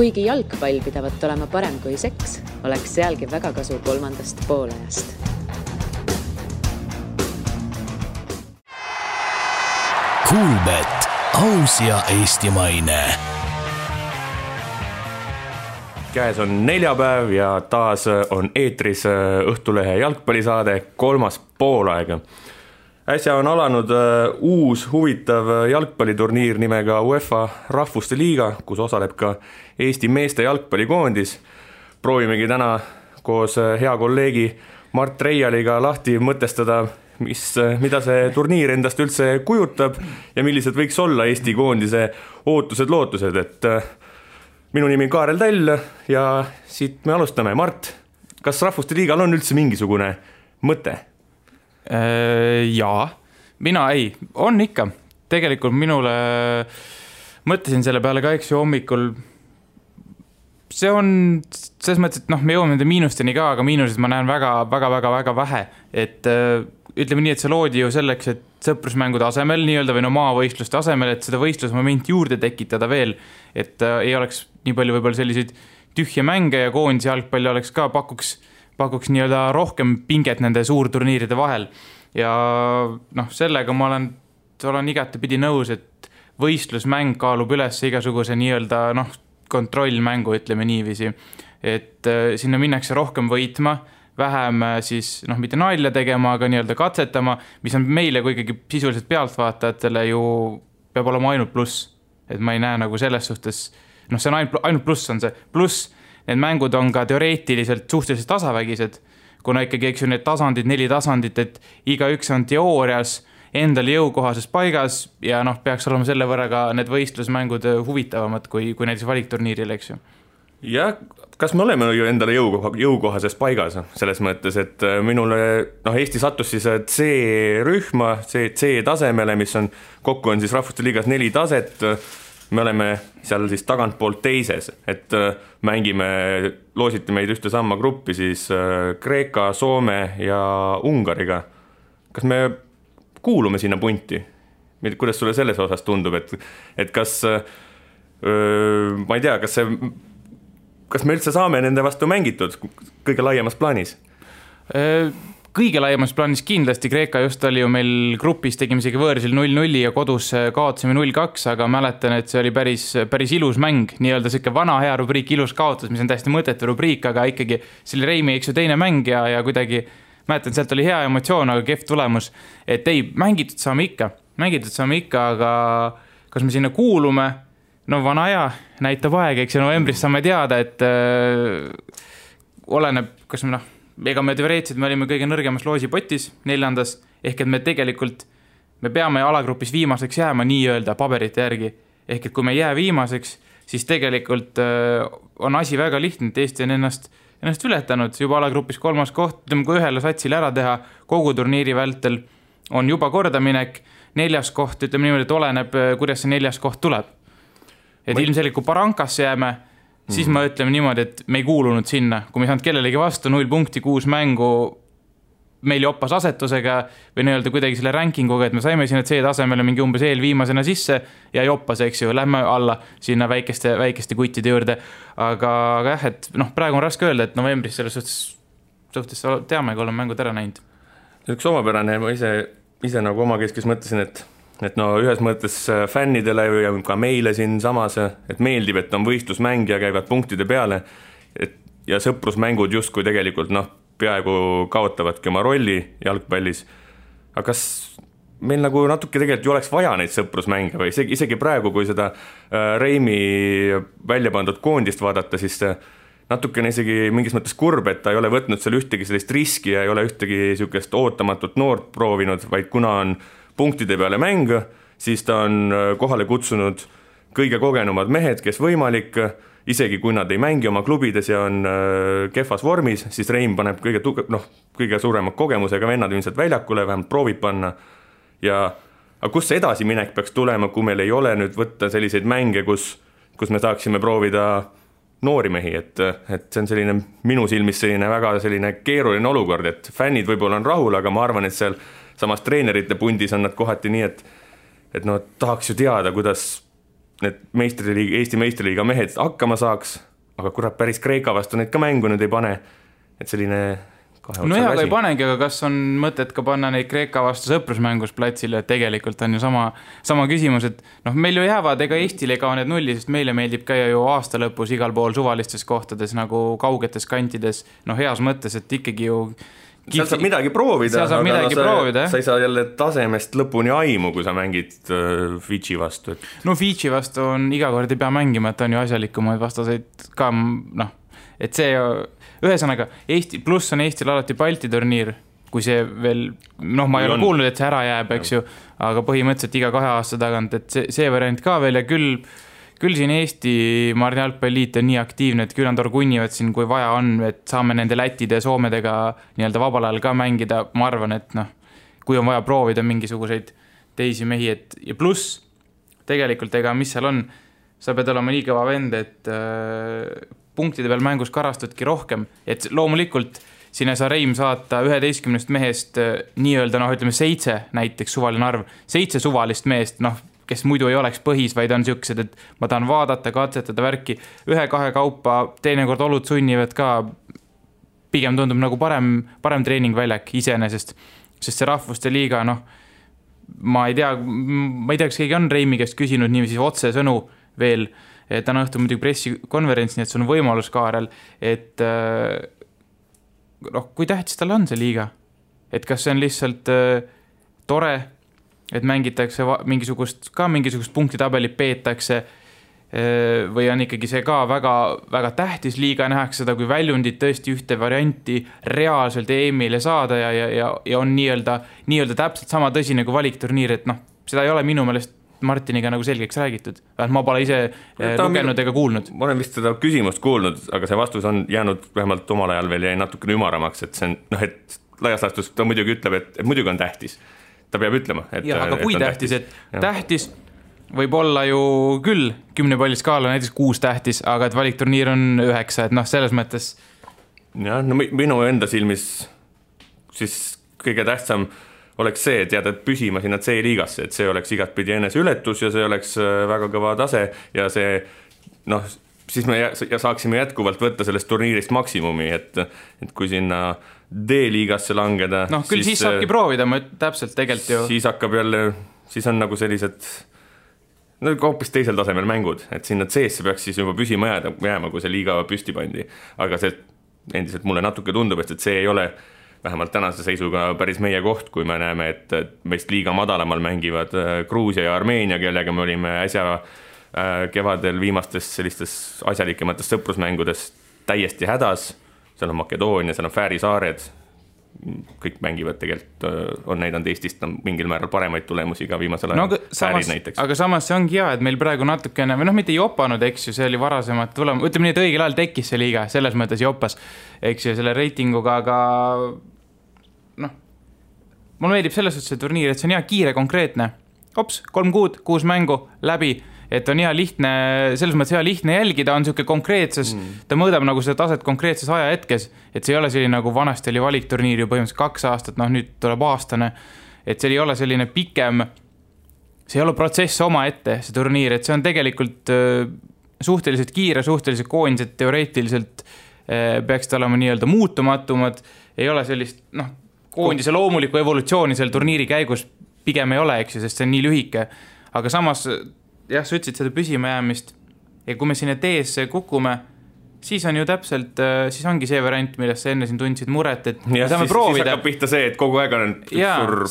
Kuigi jalgpall pidavat olema parem kui seks, oleks sealgi väga kasu kolmandast poolajast. Kuulbet, aus ja eestimaine. Käes on neljapäev ja taas on eetris Õhtulehe jalgpallisaade kolmas poolaega. Äsja on alanud uus huvitav jalgpalliturniir nimega UEFA Rahvuste Liiga, kus osaleb ka Eesti meeste jalgpallikoondis. Proovimegi täna koos hea kolleegi Mart Reialiga lahti mõtestada, mida see turniir endast üldse kujutab ja millised võiks olla Eesti koondise ootused-lootused. Et minu nimi on Kaarel Täll ja siit me alustame. Mart, kas Rahvuste Liigal on üldse mingisugune mõte? Jaa, mina ei, on ikka. Tegelikult minule mõtlesin selle peale ka hommikul. See on selles mõttes, et me jõuame nende miinusteni ka, aga miinused ma näen väga vähe. Et ütleme nii, et see loodi ju selleks, et sõprusmängude asemel nii-öelda või maavõistluste asemel, et seda võistlusmomenti juurde tekitada veel, et ei oleks nii palju võib-olla selliseid tühje mänge ja koondis jalgpalli oleks ka pakuks nii-öelda rohkem pinget nende suurturniiride vahel. Ja sellega ma olen igatepidi nõus, et võistlusmäng kaalub üles igasuguse nii-öelda kontrollmängu, ütleme niiviisi. Et sinna minnakse rohkem võitma, vähem siis mitte nalja tegema, aga nii-öelda katsetama, mis on meile kui ikkagi sisuliselt pealtvaatajatele ju peab olema ainult pluss. Et ma ei näe selles suhtes, see on ainult pluss on see. Pluss need mängud on ka teoreetiliselt suhteliselt tasavägised, kuna ikkagi need tasandid, 4 tasandit, et igaüks on teoorias endale jõukohases paigas ja peaks olema selle võrra ka need võistlusmängud huvitavamad kui näiteks valikturniiril, eks ju. Ja kas me oleme ju endale jõukohases paigas selles mõttes, et minule Eesti sattus siis C-rühma, C-tasemele, mis on kokku on siis Rahvuste Liigas 4 taset. Me oleme seal siis tagantpoolt teises, et mängime, loositi meid ühte samma gruppi siis Kreeka, Soome ja Ungariga. Kas me kuulume sinna punti? Kuidas sulle selles osas tundub, et kas, ma ei tea, kas me üldse saame nende vastu mängitud kõige laiemas plaanis? Kõige laiemas plaanis kindlasti. Kreeka just oli ju meil grupis, tegime isegi võõrsil 0-0 ja kodus kaotasime 0-2, aga mäletan, et see oli päris ilus mäng, nii-öelda siuke vana hea rubriik ilus kaotus, mis on täiesti mõttetu rubriik, aga ikkagi see oli Reimi eks ju teine mäng ja kuidagi mäletan, sealt oli hea emotsioon, aga kehv tulemus, et ei, mängitud saame ikka, aga kas me sinna kuulume? Vana hea, näitab aeg, eks ju novembris saame teada, et oleneb, kas ega me teoreetiliselt me olime kõige nõrgemas loosipotis 4. ehk et me tegelikult me peame alagrupis viimaseks jääma nii-öelda paberite järgi. Ehk et kui me jää viimaseks, siis tegelikult on asi väga lihtne, et Eesti on ennast ületanud juba alagrupis 3. koht, kui ühele satsile ära teha kogu turniiri vältel on juba kordaminek, 4. koht, ütleme niimoodi, et oleneb, kuidas see 4. koht tuleb. Et ilmselgelt kui Barankasse jääme, siis ma ütleme niimoodi, et me ei kuulunud sinna. Kui me saanud kellelegi vastu 0 punkti, 6 mängu meil joppas asetusega või nii-öelda kuidagi selle rankinguga, et me saime sinna C-tasemele mingi umbes eelviimasena sisse ja joppas, eks ju, lähme alla sinna väikeste kuttide juurde. Aga jah, et praegu on raske öelda, et novembris selles suhtes teame, kui oleme mängud ära näinud. Üks omapärane, ma ise nagu omakeskis mõtlesin, et ühes mõttes fännidele ja ka meile siin samas, et meeldib, et on võistlusmäng ja käivad punktide peale ja sõprusmängud justkui tegelikult peaaegu kaotavadki oma rolli jalgpallis. Aga kas meil nagu natuke tegelikult ju oleks vaja neid sõprusmänge või isegi praegu, kui seda Reimi välja pandud koondist vaadata, siis natukene isegi mingis mõttes kurb, et ta ei ole võtnud seal ühtegi sellist riski ja ei ole ühtegi sükest ootamatut noort proovinud, vaid kuna on punktide peale mäng, siis ta on kohale kutsunud kõige kogenumad mehed, kes võimalik, isegi kui nad ei mängi oma klubides ja on kehvas vormis, siis Reim paneb kõige suurema kogemusega vennad ilmselt väljakule, vähemalt proovib panna. Aga kus see edasiminek peaks tulema, kui meil ei ole nüüd võtta selliseid mänge, kus me saaksime proovida noori mehi, et see on selline minu silmis selline väga selline keeruline olukord, et fännid võib-olla on rahul, aga ma arvan, et seal samas treenerite pundis on nad kohati nii, et tahaks ju teada, kuidas need Eesti meistriliiga mehed hakkama saaks, aga kurat, päris Kreeka vastu neid ka mängu nüüd ei pane, et selline no hea, aga ei panegi, aga kas on mõtet ka panna neid Kreeka vastu sõprusmängus platsile, et tegelikult on ju sama küsimus, et noh, meil ju jäävad, ega Eestile ka need nulli, sest meile meeldib käia ju aasta lõpus igal pool suvalistes kohtades nagu kaugetes kantides, noh heas mõttes, et ikkagi ju seal saab midagi proovida, aga sa ei saa jälle tasemest lõpuni aimu, kui sa mängid Fidži vastu. No Fidži vastu on iga kord ei pea mängima, et on ju asjalikumaid vastaseid ka, noh, et see ühesõnaga, Eesti, pluss on Eestil alati Balti turniir, kui see veel, noh, ma ei ole kuulnud, et see ära jääb, eks ju, aga põhimõtteliselt iga 2 aasta tagant, et see variant ka veel ja küll siin Eesti Marni jalgpalliliit on nii aktiivne, et küll nad orgunnivad siin, kui vaja on, et saame nende Lätide ja Soomedega nii-öelda vabal ajal ka mängida, ma arvan, et noh, kui on vaja proovida mingisuguseid teisi mehi, et ja pluss tegelikult ega mis seal on, sa pead olema nii kõva vend, et punktide peal mängus karastudki rohkem, et loomulikult sinna sa Reim saata 11 mehest nii-öelda, noh, ütleme 7 näiteks suvaline arv, 7 suvalist meest, noh, kes muidu ei oleks põhis, vaid on siuksed, et ma tahan vaadata, katsetada värki, 1-2 kaupa, teinekord olud sunnivad ka, pigem tundub nagu parem treeningväljak iseenesest, sest see rahvuste liiga, noh, ma ei tea, kas keegi on Reimi käest küsinud niiviisi otse sõnu veel, täna õhtul muidugi pressikonverents, nii et sul on võimalus Kaarel, et noh, kui tähtis tal on see liiga? Et kas see on lihtsalt tore, et mängitakse mingisugust punktitabelit peetakse või on ikkagi see ka väga, väga tähtis liiga, nähakse seda kui väljundit tõesti ühte varianti reaalselt EM-ile saada ja on nii-öelda täpselt sama tõsine kui valikturniir, et noh, seda ei ole minu meelest Martiniga nagu selgeks räägitud. Ma pole ise lugenud ega kuulnud. Ma olen vist seda küsimust kuulnud, aga see vastus on jäänud vähemalt omal ajal veel jäi natukene ümaramaks, et see on, noh, et laias laastus ta muidugi ütleb, et muidugi on tähtis. Ta peab ütlema, et ja, aga kui tähtis, et tähtis võib olla ju küll 10 palli skaala näiteks 6 tähtis, aga et valikturniir on 9, et noh, selles mõttes jah, no minu enda silmis siis kõige tähtsam oleks see, et jääda püsima sinna C-liigasse, et see oleks igatpidi enese ületus ja see oleks väga kõva tase ja see, noh, siis me saaksime jätkuvalt võtta sellest turniirist maksimumi, et kui sinna D-liigasse langeda noh, küll siis saabki proovida, ma täpselt tegelikult ju siis hakkab jälle, siis on nagu sellised no hoopis teisel tasemel mängud, et sinna C-sse peaks siis juba püsima jääma, kui see liiga püsti pandi, aga see endiselt mulle natuke tundub, et see ei ole vähemalt tänase seisuga päris meie koht, kui me näeme, et meist liiga madalamal mängivad Gruusia ja Armeenia, kellega me olime äsja kevadel viimastes sellistes asjalikemates sõprusmängudes täiesti hädas, seal on Makedoonia, seal on Fääri saared, kõik mängivad tegelikult, on näidanud Eestist mingil määral paremaid tulemusi ka viimasel ajal, Fäärid näiteks. Aga samas see ongi hea, et meil praegu natukene, või noh, mitte jopanud, eks ju, see oli varasemalt tulema, ütleme nii, et õigel ajal tekkis see liiga, selles mõttes jopas, eks ju, selle reitinguga, aga noh, mulle meeldib selles suhtes see turniir, et see on hea kiire, konkreetne, 3 kuud, 6 mängu, läbi, et on hea lihtne, selles mõttes hea lihtne jälgida, on siuke konkreetses, ta mõõdab nagu seda taset konkreetses ajahetkes, et see ei ole selline nagu vanasti oli valikturniir ju põhimõtteliselt 2 aastat, noh nüüd tuleb aastane, et see ei ole selline pikem, see ei ole protsess oma ette, see turniir, et see on tegelikult suhteliselt kiire, suhteliselt koondised teoreetiliselt peaksid olema nii-öelda muutumatumad, ei ole sellist, noh, koondise loomulikku evolutsiooni seal turniiri käigus pigem ei ole, eks ju, sest see on nii lühike, aga samas jah, sa ütlesid seda püsima jäämist ja kui me sinna teesse kukume, siis on ju täpselt, siis ongi see variant, millest sa enne siin tundsid muret, et ja, saame siis, proovida. Siis hakkab pihta see, et kogu aeg on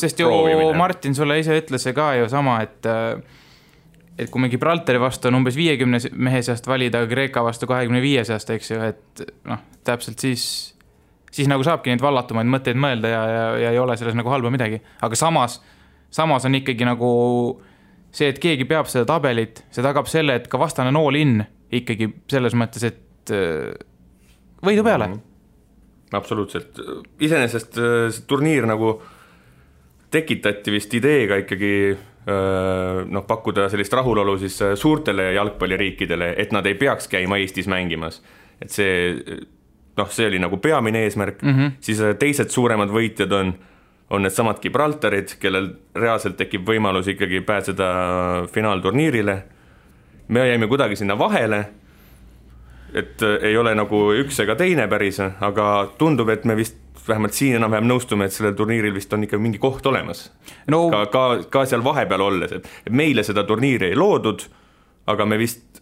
sest ju proovimine. Martin sulle ise ütles see ka ju sama, et kui me Gibraltari vastu on umbes 50 mehe seast valida, Kreeka vastu 25 seast, eks ju, et noh, täpselt siis nagu saabki neid vallatumaid mõtteid mõelda ja ei ole selles nagu halba midagi, aga samas on ikkagi nagu see, et keegi peab seda tabelit, see tagab selle, et ka vastane nool in ikkagi selles mõttes, et võidu peale. Absoluutselt. Iseenesest see turniir nagu tekitati vist ideega ikkagi noh, pakkuda sellist rahulolu siis suurtele jalgpalliriikidele, et nad ei peaks käima Eestis mängimas. Et see, noh, see oli nagu peamine eesmärk. Siis teised suuremad võitjad on need samad Gibraltarid, kellel reaalselt tekib võimalus ikkagi pääseda finaalturniirile me jäime kuidagi sinna vahele, et ei ole nagu üks ega teine päris, aga tundub, et me vist vähemalt siin enam-vähem nõustume, et sellel turniiril vist on ikka mingi koht olemas. No, ka seal vahepeal olles, et meile seda turniiri ei loodud, aga me vist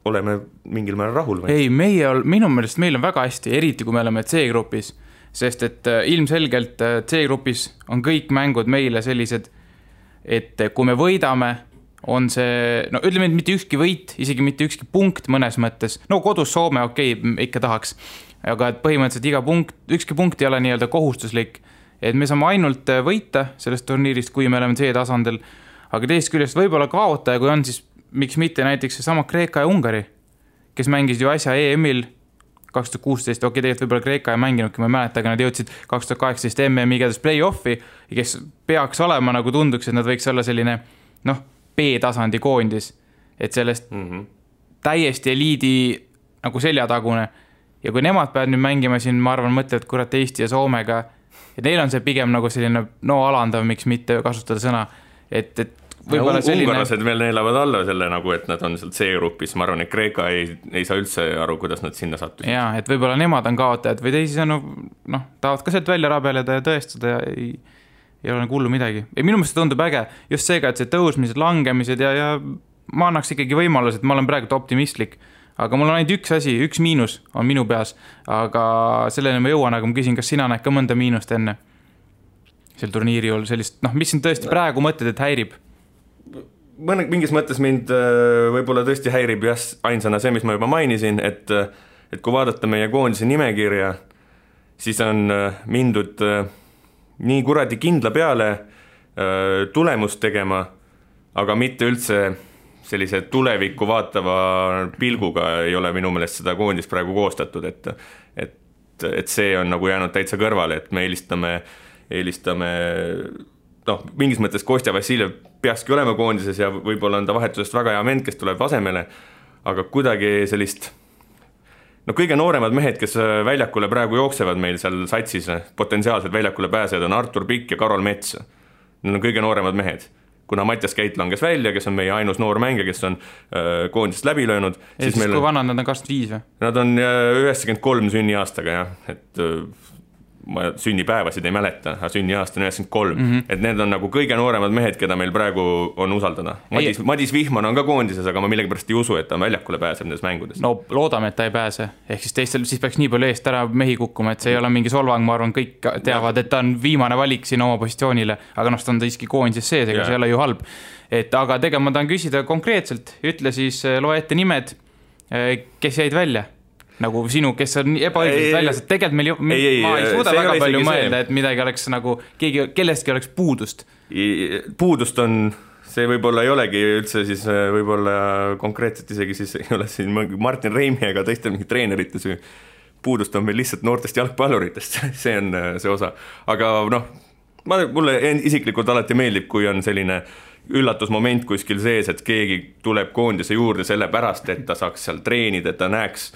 oleme mingil määral rahul. Või? Ei, minu meelest meil on väga hästi, eriti kui me oleme C-grupis, sest et ilmselgelt C-grupis on kõik mängud meile sellised, et kui me võidame, on see, no ütleme, et mitte ükski võit, isegi mitte ükski punkt mõnes mõttes, no kodus Soome, ikka tahaks, aga et põhimõtteliselt ükski punkt ei ole nii-öelda kohustuslik, et me saame ainult võita sellest turniirist, kui me oleme C-tasandil, aga teist küljest võib-olla kaotaja, kui on, siis miks mitte näiteks sama Kreeka ja Ungari, kes mängisid ju asja EM-il 2016, tegelikult võib-olla Kreeka ei mänginudki, ma ei mäleta, aga nad jõudsid 2018 MM-i igatahes play-offi, kes peaks olema, nagu tunduks, et nad võiks olla selline, B-tasandi koondis, et sellest täiesti eliidi nagu seljatagune. Ja kui nemad peavad nüüd mängima siin, ma arvan, mõtlevad kurat Eesti ja Soomega, et neil on see pigem nagu selline alandav, miks mitte kasutada sõna, et võib-olla selline... Ungarlased veel neelavad alla selle nagu, et nad on seal C-grupis, ma arvan, et Kreeka ei saa üldse aru, kuidas nad sinna sattusid. Jaa, et võib-olla nemad on kaotajad või teisisõnu, tahavad ka sealt välja rabeleda ja tõestada ja ei ole nagu hullu midagi. Minu meelest tundub äge just seega, et see tõusmised, langemised ja ma annaks ikkagi võimalus, et ma olen praegu optimistlik, aga mul on ainult üks asi, üks miinus on minu peas, aga sellele ma jõuan, aga ma küsin, kas sina näed ka mõnda miinust enne sel turniiri juhul sellist, mis sind tõesti praegu mõtled, et häirib? Mingis mõttes mind võib-olla tõesti häirib ainsana see, mis ma juba mainisin, et kui vaadata meie koondise nimekirja, siis on mindud nii kuradi kindla peale tulemust tegema, aga mitte üldse sellise tulevikku vaatava pilguga ei ole minu meelest seda koondist praegu koostatud, et see on nagu jäänud täitsa kõrvale, et me eelistame mingis mõttes Kostja Vassiljev peakski olema koondises ja võib-olla on ta vahetusest väga hea vend, kes tuleb asemele, aga kuidagi sellist kõige nooremad mehed, kes väljakule praegu jooksevad meil seal satsis, potentsiaalselt väljakule pääsejad on Artur Pikk ja Karol Mets. Need on kõige nooremad mehed. Kuna Mattias Käit langes välja, kes on meie ainus noor mängija, kes on koondisest läbi löönud. Siis kui vanad nad on 25 või? Nad on 93 sünniaastaga, et ma sünnipäevasid ei mäleta, aga sünniaasta on 93, et need on nagu kõige nooremad mehed, keda meil praegu on usaldada. Madis Vihman on ka koondises, aga ma millegipärast ei usu, et ta väljakule pääseb nendes mängudes. No loodame, et ta ei pääse, ehk siis teistel siis peaks nii palju eest ära mehi kukkuma, et see ei ole mingi solvang, ma arvan, kõik teavad, et ta on viimane valik siin oma positsioonile, aga ta on siiski koondises sees, ega see ei ole ju halb. Ma tahan küsida konkreetselt, ütle siis, loe ette nimed, kes jäid välja? Nagu sinu, kes on ebaõiglaselt väljas, et tegelikult meil ma ei suuda väga palju mõelda, et midagi oleks nagu, kellestki oleks puudust. Puudust on, see võib-olla ei olegi üldse siis võib-olla konkreetselt isegi siis ei ole siin Martin Reimi ega teiste mingi treenerite süü. Puudust on meil lihtsalt noortest jalgpalluritest, see on see osa. Aga mulle isiklikult alati meeldib, kui on selline üllatusmoment kuskil sees, et keegi tuleb koondise juurde selle pärast, et ta saaks seal treenida, et ta näeks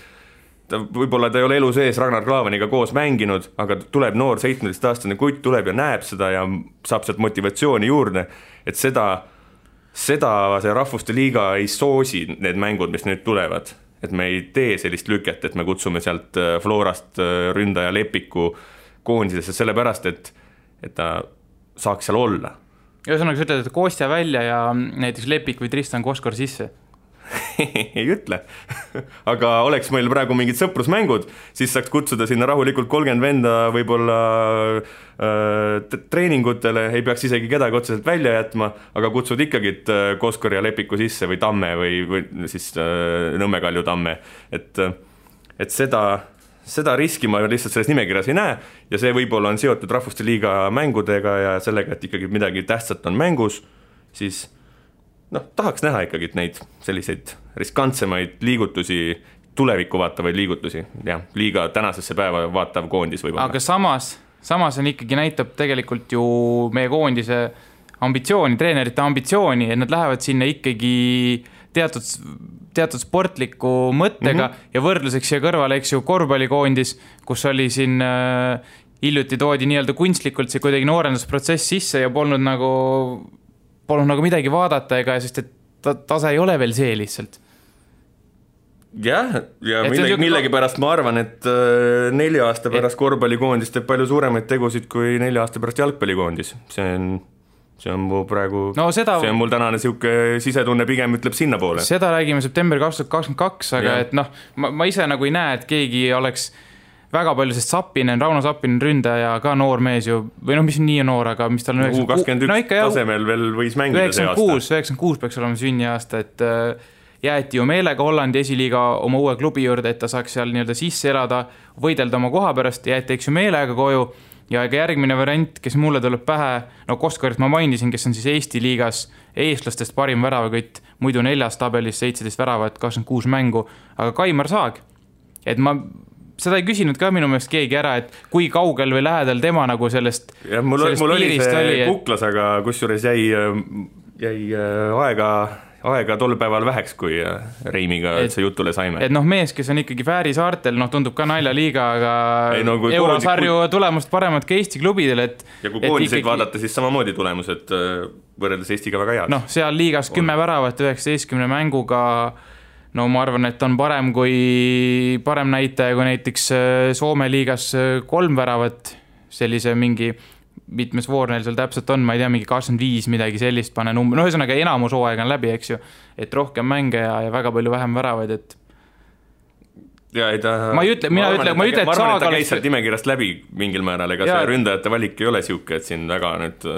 võib-olla ta ei ole elu sees Ragnar Klavaniga koos mänginud, aga tuleb noor 17-aastane kutt, tuleb ja näeb seda ja saab sealt motivatsiooni juurde, et seda see rahvuste liiga ei soosi need mängud, mis nüüd tulevad, et me ei tee sellist lüket, et me kutsume sealt Florast ründaja Lepiku koondisesse sellepärast, et ta saaks seal olla. Ühesõnaga, sa ütled, et Kostja välja ja näiteks Lepik või Tristan Koskor sisse? ei ütle, aga oleks meil praegu mingid sõprusmängud, siis saaks kutsuda sinna rahulikult 30 venda võib-olla treeningutele, ei peaks isegi kedagi otseselt välja jätma, aga kutsud ikkagi Koskor ja Lepiku sisse või Tamme või siis Nõmme Kalju Tamme, et seda riski ma lihtsalt selles nimekirjas ei näe ja see võib-olla on seotud Rahvuste Liiga mängudega ja sellega, et ikkagi midagi tähtsat on mängus, siis tahaks näha ikkagi neid selliseid riskantsemaid liigutusi, tulevikku vaatavaid liigutusi, ja liiga tänasesse päeva vaatav koondis võib-olla. Aga samas on ikkagi näitab tegelikult ju meie koondise ambitsiooni, treenerite ambitsiooni, et nad lähevad sinna ikkagi teatud sportliku mõttega ja võrdluseks siia kõrvale, eks ju, korvpallikoondis, kus oli siin hiljuti toodi nii-öelda kunstlikult see kuidagi noorendusprotsess sisse ja polnud nagu midagi vaadata, sest et tase ei ole veel see lihtsalt. Jah, ja millegi pärast ma arvan, et 4 aasta pärast korvpallikoondis teeb palju suuremaid tegusid kui 4 aasta pärast jalgpallikoondis. See on mu praegu, see on mul tänane siuke sisetunne pigem ütleb sinna poole. Seda räägime september 2022, aga et noh, ma ise nagu ei näe, et keegi oleks väga palju, sest Rauno Sappinen ründaja ka noor mees ju, või noh, mis nii noor, aga mis tal on 21 tasemel veel võis mängida see aasta. 96 peaks olema sünniaasta, et jäeti ju meelega Hollandi esiliiga oma uue klubi juurde, et ta saaks seal nii-öelda sisse elada, võidelda oma koha pärast, jäeti eks ju meelega koju ja ega järgmine variant, kes mulle tuleb pähe, no Koskarit ma mainisin, kes on siis Eesti liigas eestlastest parim väravakütt, muidu 4. tabelis 17 väravat, 26 mängu, aga Kaimar Saag, et ma seda ei küsinud ka minu meelest keegi ära, et kui kaugel või lähedal tema nagu sellest ja mul oli see kuklas, aga kusjuures jäi aega tol päeval väheks, kui Reimiga see jutule saime. Et noh, mees, kes on ikkagi Fääri saartel, noh, tundub ka naljaliiga, aga eurosarju tulemust paremad ka Eesti klubidel, et ja kui koondiseid vaadata, siis samamoodi tulemused võrreldes Eestiga väga head. Noh, seal liigas 10 väravat 19 mänguga, no ma arvan, et on parem näitaja kui näiteks Soome liigas 3 väravat, sellise mingi mitmes voor neil seal täpselt on, ma ei tea, mingi 25 midagi sellist pane number, no ühesõnaga enamus hooaeg on läbi, eks ju, et rohkem mänge ja väga palju vähem väravaid, et ja ei ta ma arvan, et ta käis sealt nimekirjast läbi mingil määral, ega see ründajate valik ei ole siuke, et siin väga nüüd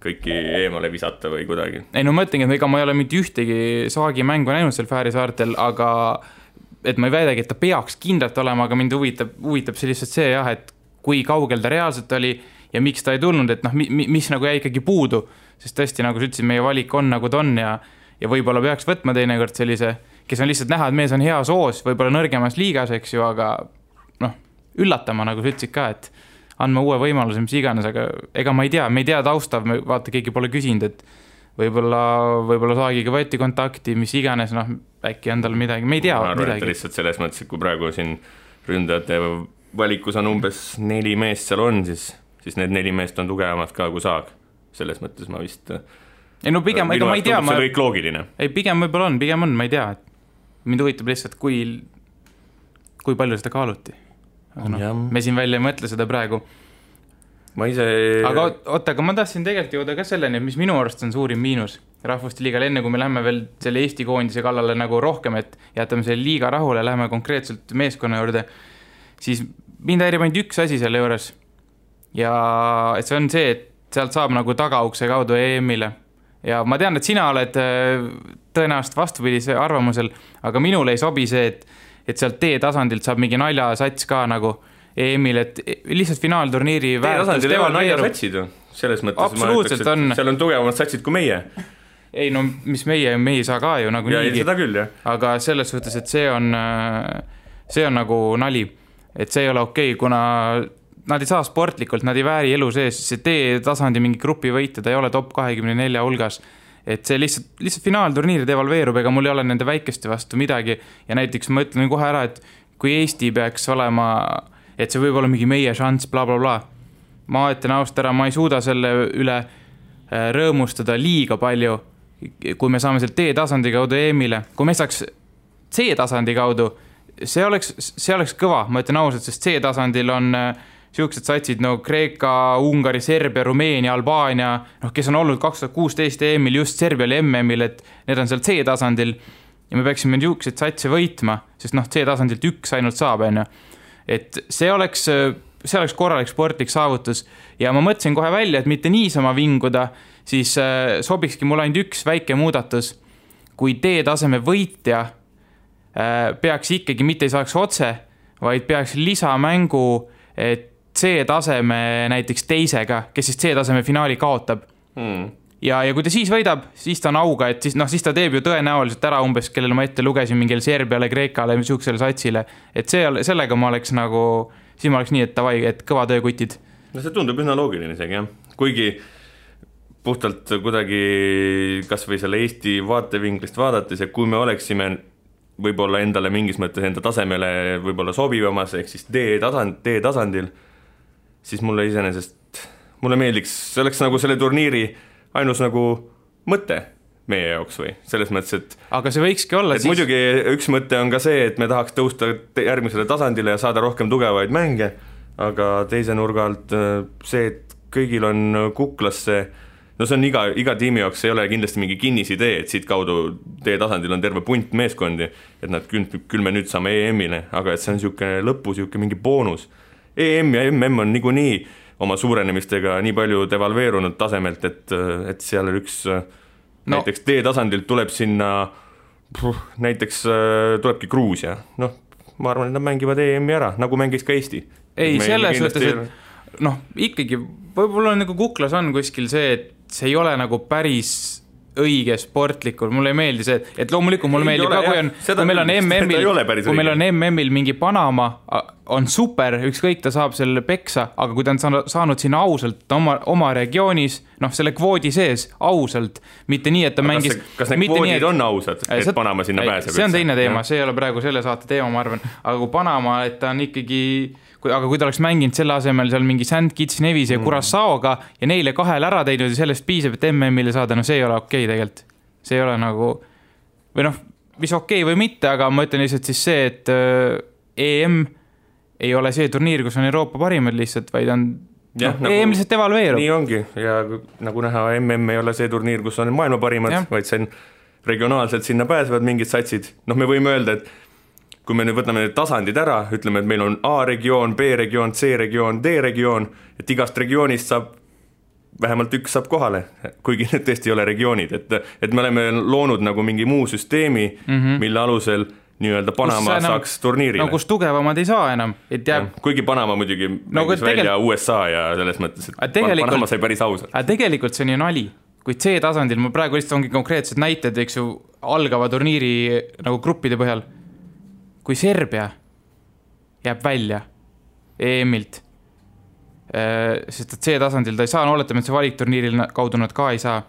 kõiki eemale visata või kuidagi. Ei no mõtlengi, et ega ma ei ole mitte ühtegi Saagi mängu näinud seal Fääri saartel, aga et ma ei väidagi, et ta peaks kindlalt olema, aga mind huvitab see lihtsalt see jah, et kui kaugel ta reaalselt oli ja miks ta ei tulnud, et noh, mis nagu jäi ikkagi puudu, sest tõesti, nagu sa ütlesid, meie valik on nagu ta on ja võib-olla peaks võtma teinekord sellise, kes on lihtsalt näha, et mees on hea soos, võib-olla nõrgemas liigas, eks ju, aga noh, üllatama, nagu sa ütlesid ka, et andma uue võimaluse, mis iganes, aga ega ma ei tea taustav, vaata, keegi pole küsinud, et võib-olla Saagiga võeti kontakti, mis iganes, noh, äkki on tal midagi, me ei tea ma arvan, et lihtsalt selles mõttes, et kui praegu siin ründajate valikus on umbes 4 meest seal on, siis need 4 meest on tugevamad ka kui Saag. Selles mõttes ma vist ei no pigem, ega ma ei tea see kõik loogiline. Ei, pigem võib-olla on, ma ei tea, et mind huvitab lihtsalt, kui palju seda kaaluti. Aga no, me siin välja ei mõtle seda praegu. Aga ma tahtsin tegelikult jõuda ka selleni, mis minu arust on suurim miinus Rahvuste liigal, enne kui me lähme veel selle Eesti koondise kallale nagu rohkem, et jätame selle liiga rahule, lähme konkreetselt meeskonna juurde, siis mind häirib ainult üks asi selle juures. Ja et see on see, et sealt saab nagu tagaukse kaudu EM-ile. Ja ma tean, et sina oled tõenäoliselt vastupidise arvamusel, aga minule ei sobi see, et sealt T-tasandilt saab mingi naljasats ka nagu EM-il, et lihtsalt finaalturniiri T-tasandil ei ole naljasatsid ju. Selles mõttes absoluutselt ma ütleks, et seal on tugevamad satsid kui meie. Ei no, mis meie ei saa ka ju nagu niigi. Seda küll, jah. Aga selles suhtes, et see on nagu nali. Et see ei ole okei, kuna nad ei saa sportlikult, nad ei vääri elu sees, see T-tasandi mingi grupi võita, ta ei ole top 24 hulgas, et see lihtsalt finaalturniiri devalveerub, ega mul ei ole nende väikeste vastu midagi ja näiteks ma ütlen kohe ära, et kui Eesti peaks olema, et see võib olla mingi meie šanss, bla bla bla, ma ütlen ausalt ära, ma ei suuda selle üle rõõmustada liiga palju, kui me saame seal T-tasandi kaudu EM-ile, kui me saaks C-tasandi kaudu, see oleks kõva, ma ütlen ausalt, sest C-tasandil on siuksed satsid, no Kreeka, Ungari, Serbia, Rumeenia, Albaania, noh, kes on olnud 2016 EM-il just Serbial MM-il, et need on seal C-tasandil ja me peaksime niisugused satse võitma, sest noh, C-tasandilt üks ainult saab, enne. Et see oleks korralik sportlik saavutus ja ma mõtlesin kohe välja, et mitte niisama vinguda, siis sobikski mul ainult üks väike muudatus, kui D-taseme võitja peaks ikkagi mitte ei saaks otse, vaid peaks lisamängu C-taseme näiteks teisega, kes siis C-taseme finaali kaotab. Ja kui ta siis võidab, siis ta on auga, et siis ta teeb ju tõenäoliselt ära umbes, kellele ma ette lugesin mingil Serbiale, Kreekale, siuksele satsile. Et sellega ma oleks nagu, siis ma oleks nii, et kõva töökutid. No see tundub üsna loogiline isegi, jah. Kuigi puhtalt kuidagi kas või selle Eesti vaatevinklist vaadates, ja kui me oleksime võib-olla endale mingis mõttes enda tasemele võib-olla sobivamas, ehk siis D-tasandil, siis mulle meeldiks, see oleks nagu selle turniiri ainus nagu mõte. meie jaoks või, selles mõttes, et aga see võikski olla et siis... muidugi üks mõte on ka see, et me tahaks tõusta järgmisele tasandile ja saada rohkem tugevaid mänge, aga teise nurga alt see, et kõigil on kuklasse, no see on iga tiimi jaoks, ei ole kindlasti mingi kinnisidee, et siit kaudu teie tasandil on terve punt meeskondi, et nad küll me nüüd saame EM-ile, aga et see on niisugune lõpu, niisugune mingi boonus. EM ja MM on niikuinii oma suurenemistega nii palju devalveerunud tasemelt, et seal üks näiteks D-tasandilt tuleb sinna näiteks tulebki Gruusia, noh, ma arvan, et nad mängivad EM-i ära, nagu mängis ka Eesti. Ei, selles mõttes, et noh, ikkagi võib-olla nagu kuklas on kuskil see, et see ei ole nagu päris õige sportlikul, mulle ei meeldi see, et loomulikult mulle meeldib ka, kui meil on MM-il mingi Panama, on super, ükskõik ta saab selle peksa, aga kui ta on saanud sinna ausalt oma regioonis, noh, selle kvoodi sees ausalt, mitte nii, et ta mängis... Kas need kvoodid on ausad, et Panama sinna pääseb? See on teine teema, see ei ole praegu selle saate teema, ma arvan, aga kui Panama, et ta on ikkagi... Aga kui ta oleks mänginud selle asemel seal mingi St. Kitts Nevis ja Curaçaoga ja neile 2 ära teinud ja sellest piisab, et MM-ile saada, no see ei ole okei tegelikult. See ei ole nagu, või noh, mis okei või mitte, aga ma ütlen lihtsalt siis see, et EM ei ole see turniir, kus on Euroopa parimad lihtsalt, vaid on EM lihtsalt evalveerub. Nii ongi ja nagu näha, MM ei ole see turniir, kus on maailma parimad, vaid see on regionaalselt sinna pääsevad mingid satsid. Noh, me võime öelda, et kui me nüüd võtame need tasandid ära, ütleme, et meil on A-regioon, B-regioon, C-regioon, D-regioon, et igast regioonist saab, vähemalt üks saab kohale, kuigi need tõesti ei ole regioonid, et me oleme loonud nagu mingi muu süsteemi, mille alusel nii-öelda Panama saaks turniirile. No kus tugevamad ei saa enam. Et jääb... Kuigi Panama muidugi mängis välja USA ja selles mõttes, et Panama sai päris ausalt. Aga tegelikult see on ju nali. Kuid C-tasandil, ma praegu lihtsalt ongi konkreetsed näited, eks ju, algava turniiri nagu gruppide põhjal. Kui Serbia jääb välja EM-ilt, sest et C-tasandil ta ei saa, oletame, et see valikturniiril kaudu nad ka ei saa,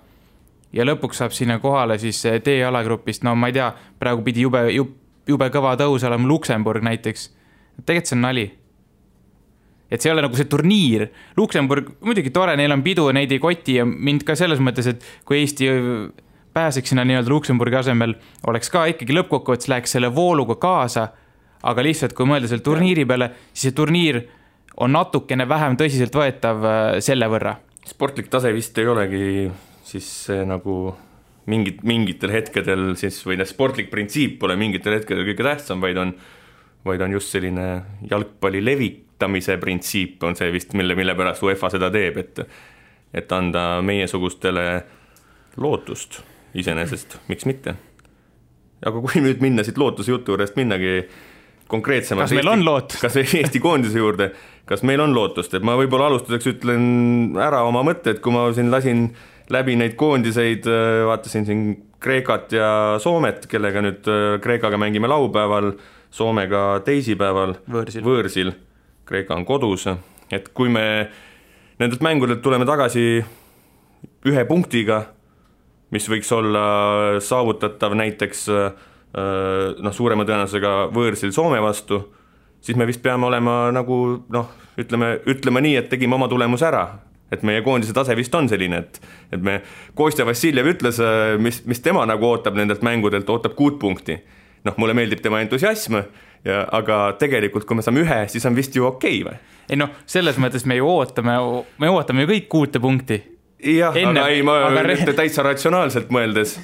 ja lõpuks saab sinna kohale siis D-alagrupist, no ma ei tea, praegu pidi jube kõva tõus olema Luksemburg näiteks. Tegelikult see on nali. Et see ei ole nagu see turniir. Luksemburg, muidugi tore, neil on pidu, neid ei koti ja mind ka selles mõttes, et kui Eesti pääseks sinna nii-öelda Luksemburgi asemel, oleks ka ikkagi lõppkokkuvõttes läheks selle vooluga kaasa, aga lihtsalt kui mõelda selle turniiri peale, siis see turniir on natukene vähem tõsiselt võetav selle võrra. Sportlik tase vist ei olegi siis nagu mingitel hetkedel siis, või sportlik printsiip pole mingitel hetkedel kõige tähtsam, vaid on just selline jalgpalli levitamise printsiip on see vist, mille pärast UEFA seda teeb, et anda meiesugustele lootust iseenesest, miks mitte. Aga kui nüüd minna siit lootuse jutu juurest minnagi konkreetsemalt... Kas meil on lootust? Kas Eesti koondise juurde, kas meil on lootust? Et ma võib-olla alustuseks ütlen ära oma mõtted, kui ma siin lasin läbi neid koondiseid, vaatasin siin Kreekat ja Soomet, kellega nüüd Kreekaga mängime laupäeval, Soomega teisipäeval võõrsil. Kreeka on kodus. Et kui me nendelt mängudelt tuleme tagasi 1 punktiga, mis võiks olla saavutatav näiteks suurema tõenäosusega võõrsil Soome vastu, siis me vist peame olema nagu, ütleme nii, et tegime oma tulemuse ära. Et meie koondise tase vist on selline, et me Kostja Vassiljev ütles, mis tema nagu ootab nendelt mängudelt, ootab 6 punkti. Mulle meeldib tema entusiasm, aga tegelikult kui me saame 1, siis on vist ju okei või? Ei selles mõttes me ootame ju kõik 6 punkti. Jah, aga ei, ma täitsa ratsionaalselt mõeldes.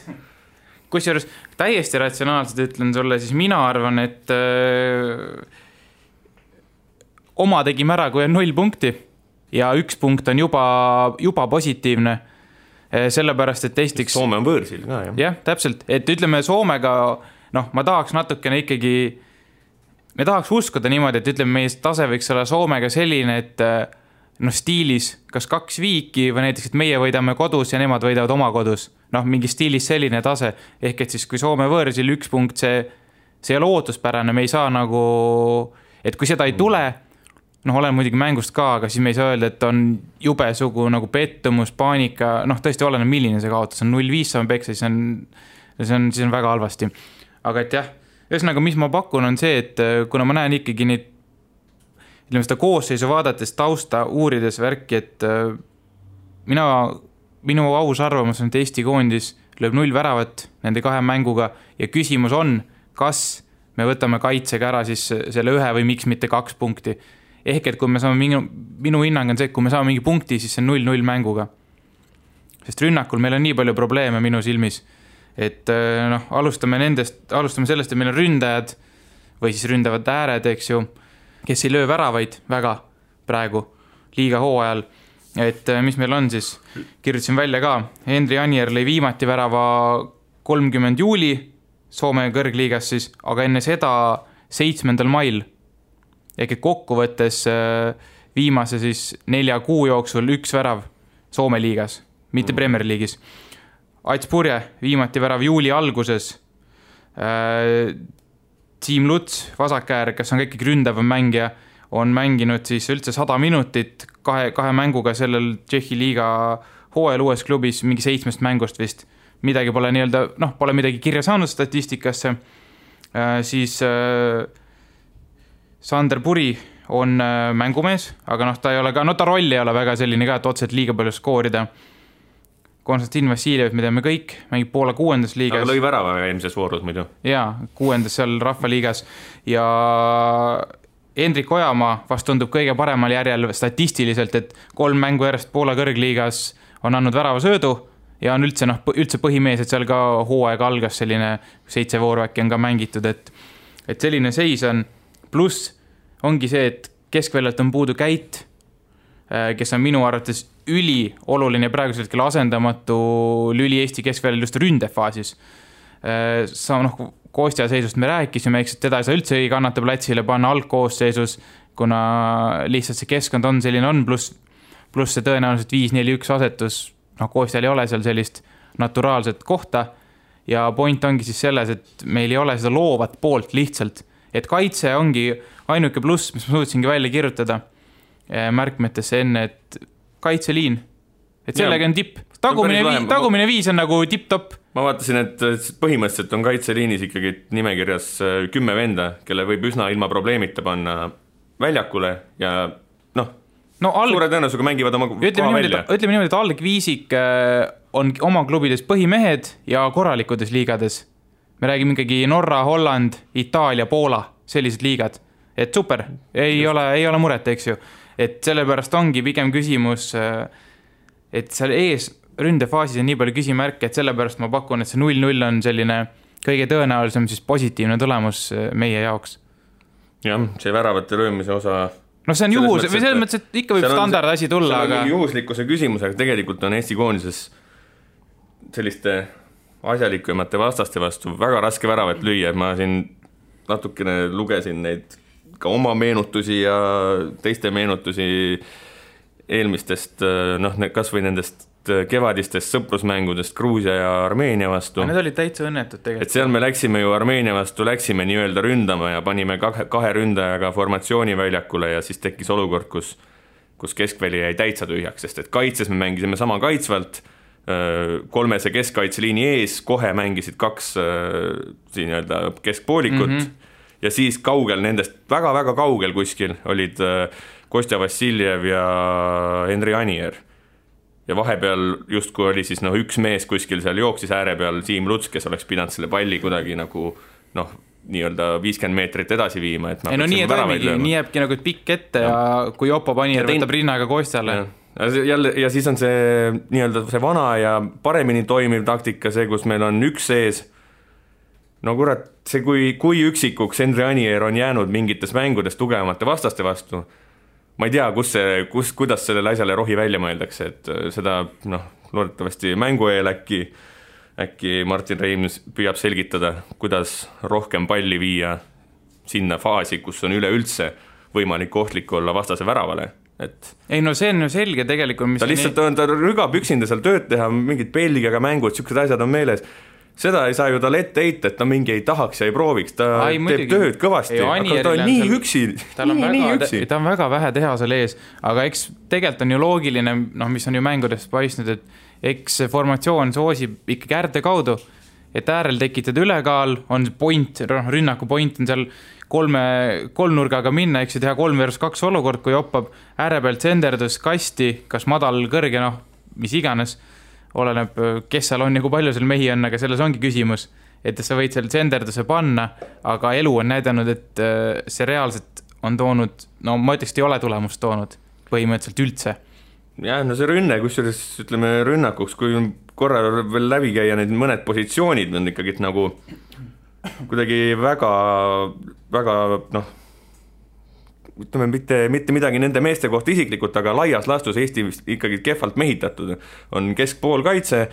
Kusjuures täiesti ratsionaalselt ütlen sulle, siis mina arvan, et oma tegime ära, kui on 0 punkti ja 1 punkt on juba positiivne. Sellepärast, et Eestiks... Soome on võõrsil ka, jah. Jah, täpselt. Et ütleme Soomega, ma tahaks natukene ikkagi, me tahaks uskuda niimoodi, et ütleme, meie tase võiks olla Soomega selline, et stiilis kas 2 viiki või näiteks, et meie võidame kodus ja nemad võidavad oma kodus. Mingi stiilis selline tase. Ehk et siis, kui Soome võõrsil 1 punkt, see ei ole ootuspärane, me ei saa nagu, et kui seda ei tule, olen muidugi mängust ka, aga siis me ei saa öelda, et on jube sugu nagu pettumus, paanika, tõesti oleneb milline see kaotus on 0-5 saame peksa, siis on väga halvasti. Aga et jah, ühesõnaga, mis ma pakun on see, et kuna ma näen ikkagi neid seda koosseisu vaadates tausta uurides värki, et minu aus arvamus on, et Eesti koondis lööb 0 väravat nende 2 mänguga ja küsimus on, kas me võtame kaitsega ära siis selle 1 või miks mitte 2 punkti. Ehk et kui me saame minu hinnang on see, et kui me saame mingi punkti, siis see on 0-0 mänguga. Sest rünnakul meil on nii palju probleeme minu silmis, et alustame sellest, et meil on ründajad või siis ründavad ääred, eks ju, kes ei löö väravaid väga praegu liiga hooajal. Et mis meil on siis, kirjutasin välja ka, Henri Anier lõi viimati värava 30 juuli Soome kõrgliigas siis, aga enne seda 7. mail. Ehk et kokkuvõttes viimase siis 4 kuu jooksul 1 värav Soome liigas, mitte Premier League'is. Ats Purje viimati värav juuli alguses. Team Luts, vasakäär, kes on kõik ründav mängija, on mänginud siis üldse 100 minutit 2 mänguga sellel Tšehhi liiga hooajal uues klubis, mingi 7 mängust vist. Midagi pole pole midagi kirja saanud statistikasse. Siis Sander Puri on mängumees, aga ta ei ole ka, ta roll ei ole väga selline ka, et otseselt liiga palju skoorida. Konstantin Vassiljev, me teame kõik, mängib Poola 6. liigas. Aga lõi värava eelmises voorus muidu. Jaa, 6. seal rahvaliigas. Ja Hendrik Ojamaa vast tundub kõige paremal järjel statistiliselt, et 3 mängu järjest Poola kõrgliigas on andnud värava söödu ja on üldse põhimees, et seal ka hooaeg algas selline 7 vooru äkki on ka mängitud, et selline seis on. Pluss ongi see, et keskväljalt on puudu Käit, kes on minu arvates ülioluline praegusel hetkel asendamatu lüli Eesti keskväljal just ründefaasis. Kostja seisust me rääkisime, eks teda ei saa üldse ei kannata platsile panna algkoosseisus, kuna lihtsalt see keskkond on selline on, pluss see tõenäoliselt 5-4-1 asetus, Kostjal ei ole seal sellist naturaalset kohta ja point ongi siis selles, et meil ei ole seda loovat poolt lihtsalt, et kaitse ongi ainuke pluss, mis ma suutsingi välja kirjutada märkmetesse enne, et kaitseliin, et sellega on tipp. Tagumine 5 on nagu tipp-top. Ma vaatasin, et põhimõtteliselt on kaitseliinis ikkagi nimekirjas 10 venda, kelle võib üsna ilma probleemita panna väljakule ja suure tõenäosusega mängivad oma koha välja. Ütleme niimoodi, et algviisik on oma klubides põhimehed ja korralikudes liigades. Me räägime ikkagi Norra, Holland, Itaalia, Poola, sellised liigad. Et super, ei ole muret, eks ju. Et sellepärast ongi pigem küsimus, et seal ees ründefaasis on nii palju küsimärke, et sellepärast ma pakun, et see 0-0 on selline kõige tõenäolisem siis positiivne tulemus meie jaoks. Jah, see väravate löömise osa... see on juhus, või selles mõttes, et ikka võib standard asi tulla, aga... juhuslikkuse küsimus, aga tegelikult on Eesti koondises selliste asjalikumate vastaste vastu väga raske väravat lüüa. Ma siin natukene lugesin neid ka oma meenutusi ja teiste meenutusi eelmistest, kas või nendest kevadistest sõprusmängudest Gruusia ja Armeenia vastu. Need olid täitsa õnnetud tegelikult. Et seal me läksime ju Armeenia vastu, läksime nii-öelda ründama ja panime 2 ründajaga formatsiooni väljakule ja siis tekkis olukord, kus keskväli jäi täitsa tühjaks, sest et kaitses me mängisime sama kaitsvalt, 3 keskkaitseliini ees, kohe mängisid 2 nii-öelda keskpoolikut ja siis kaugel nendest, väga-väga kaugel kuskil olid Kostja Vassiljev ja Henri Anier. Ja vahepeal justkui oli siis üks mees kuskil seal jooksis ääre peal, Team Luts, kes oleks pidanud selle palli kuidagi nagu nii-öelda 50 meetrit edasi viima. Et nii jääbki nagu pikk ette ja kui Jopo Panier võtab rinnaga Kostjale. Ja siis on see nii-öelda see vana ja paremini toimiv taktika, see, kus meil on üks sees. Kurat, see kui üksikuks Henri Anier on jäänud mingites mängudes tugevamate vastaste vastu, ma ei tea, kuidas sellele asjale rohi välja mõeldakse, et seda loodetavasti mängu eel äkki Martin Reims püüab selgitada, kuidas rohkem palli viia sinna faasi, kus on üleüldse võimalik ohtlik olla vastase väravale. See on ju selge tegelikult. Ta lihtsalt ta rügab üksinda seal tööd teha, mingid Belgiaga mängud, siuksed asjad on meeles. Seda ei saa ju tal ette heita, et ta mingi ei tahaks ja ei prooviks, ta teeb tööd kõvasti, aga ta on nii üksi. Ta on väga vähe teha seal ees, aga eks tegelikult on ju loogiline, mis on ju mängudest paistnud, et eks formatsioon soosib ikkagi äärde kaudu, et äärel tekitada ülekaal, on point, rünnaku point on seal kolmnurgaga minna, eks ju teha 3-2 olukord, kui hoppab ääre pealt senderdus kasti, kas madal, kõrge, mis iganes, oleneb, kes seal on ja kui palju seal mehi on, aga selles ongi küsimus, et sa võid seal senderduse panna, aga elu on näidanud, et see reaalselt on toonud, no ma ütleks, et ei ole tulemust toonud põhimõtteliselt üldse. Jah, no see rünne, kusjuures ütleme rünnakuks, kui korra veel läbi käia need mõned positsioonid on ikkagi nagu kuidagi väga, noh, ütleme mitte midagi nende meeste kohta isiklikult, aga laias laastus Eesti ikkagi kehvalt mehitatud. On keskpoolkaitse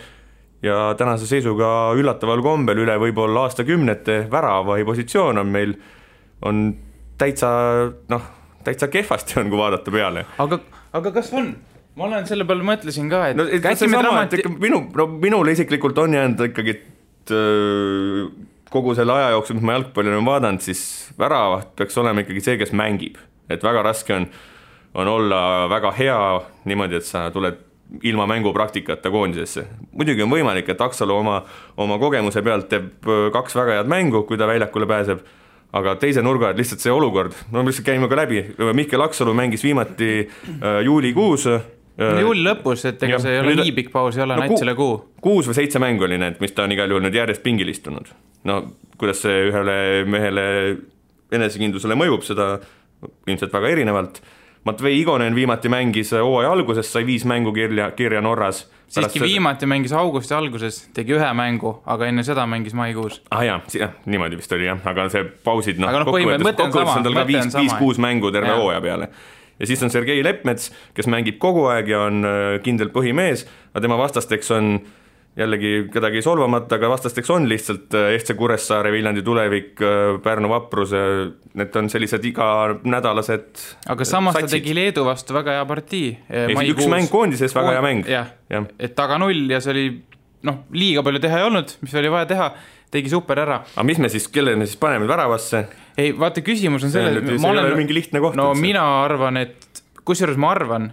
ja tänase seisuga üllataval kombel üle võib-olla aastakümnete värava positsioon on meil on täitsa kehvasti on, kui vaadata peale. Aga kas on? Ma olen selle peale mõtlesin ka, et... No, minule isiklikult on jäänud ikkagi, et kogu selle aja jooksul, mis ma jalgpalli olen vaadanud, siis väravaht peaks olema ikkagi see, kes mängib. Et väga raske on olla väga hea niimoodi, et sa tuled ilma mängupraktikata koondisesse. Muidugi on võimalik, et Aksalu oma kogemuse pealt teeb 2 väga head mängu, kui ta väljakule pääseb, aga teise nurga, et lihtsalt see olukord, no lihtsalt käime ka läbi, Mihkel Aksalu mängis viimati juulikuus. Juuli lõpus, et ega see ei ole nii pikk paus, ei ole näitsele kuu. 6 või 7 mängu oli need, mis ta on igal juhul nüüd järjest pingil istunud. No kuidas see ühele mehele enesekindlusele mõjub, seda ilmselt väga erinevalt. Matvei Igonen viimati mängis hooaja alguses, sai 5 mängu kirja Norras. Siiski viimati mängis augusti alguses, tegi 1 mängu, aga enne seda mängis maikuus. Jah, niimoodi vist oli jah, aga see pausid, kokkuvõttes on tal ka 5-6 mängu terve hooaja peale. Ja siis on Sergei Lepmets, kes mängib kogu aeg ja on kindel põhimees, aga tema vastasteks on jällegi kedagi solvamata, aga vastasteks on lihtsalt FC Kuressaare, Viljandi Tulevik, Pärnu Vaprus, need on sellised iganädalased aga samas satsid. Ta tegi Leedu vastu väga hea partii. Üks mäng koondises, väga hea mäng. Ja. Et taga 0 ja see oli, liiga palju teha ei olnud, mis oli vaja teha, tegi super ära. Aga mis me siis, kelle me siis paneme väravasse? Ei, vaata, küsimus on selle, see ei ole mingi lihtne koht. No mina arvan, et kusjuures ma arvan,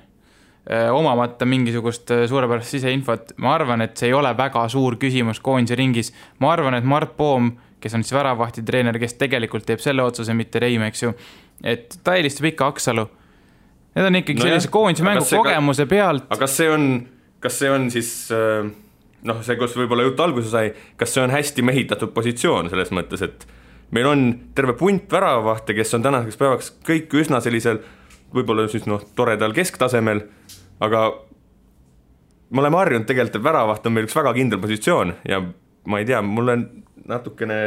omamata mingisugust suurepärast siseinfot, ma arvan, et see ei ole väga suur küsimus koondise ringis. Ma arvan, et Mart Poom, kes on siis väravahti treener, kes tegelikult teeb selle otsuse, mitte Reim, eks ju, et ta eelistab ikka Aksalu. Need on ikkagi sellise koondise mängu kogemuse pealt. Aga kas see on siis, see, kus võib-olla jutt alguse sai, kas see on hästi mehitatud positsioon selles mõttes, et meil on terve punt väravahte, kes on tänaseks päevaks kõik üsna sellisel võib-olla siis toredal kesktasemel, aga me oleme harjunud tegelikult, et väravaht on meil üks väga kindel positsioon ja ma ei tea, mulle natukene,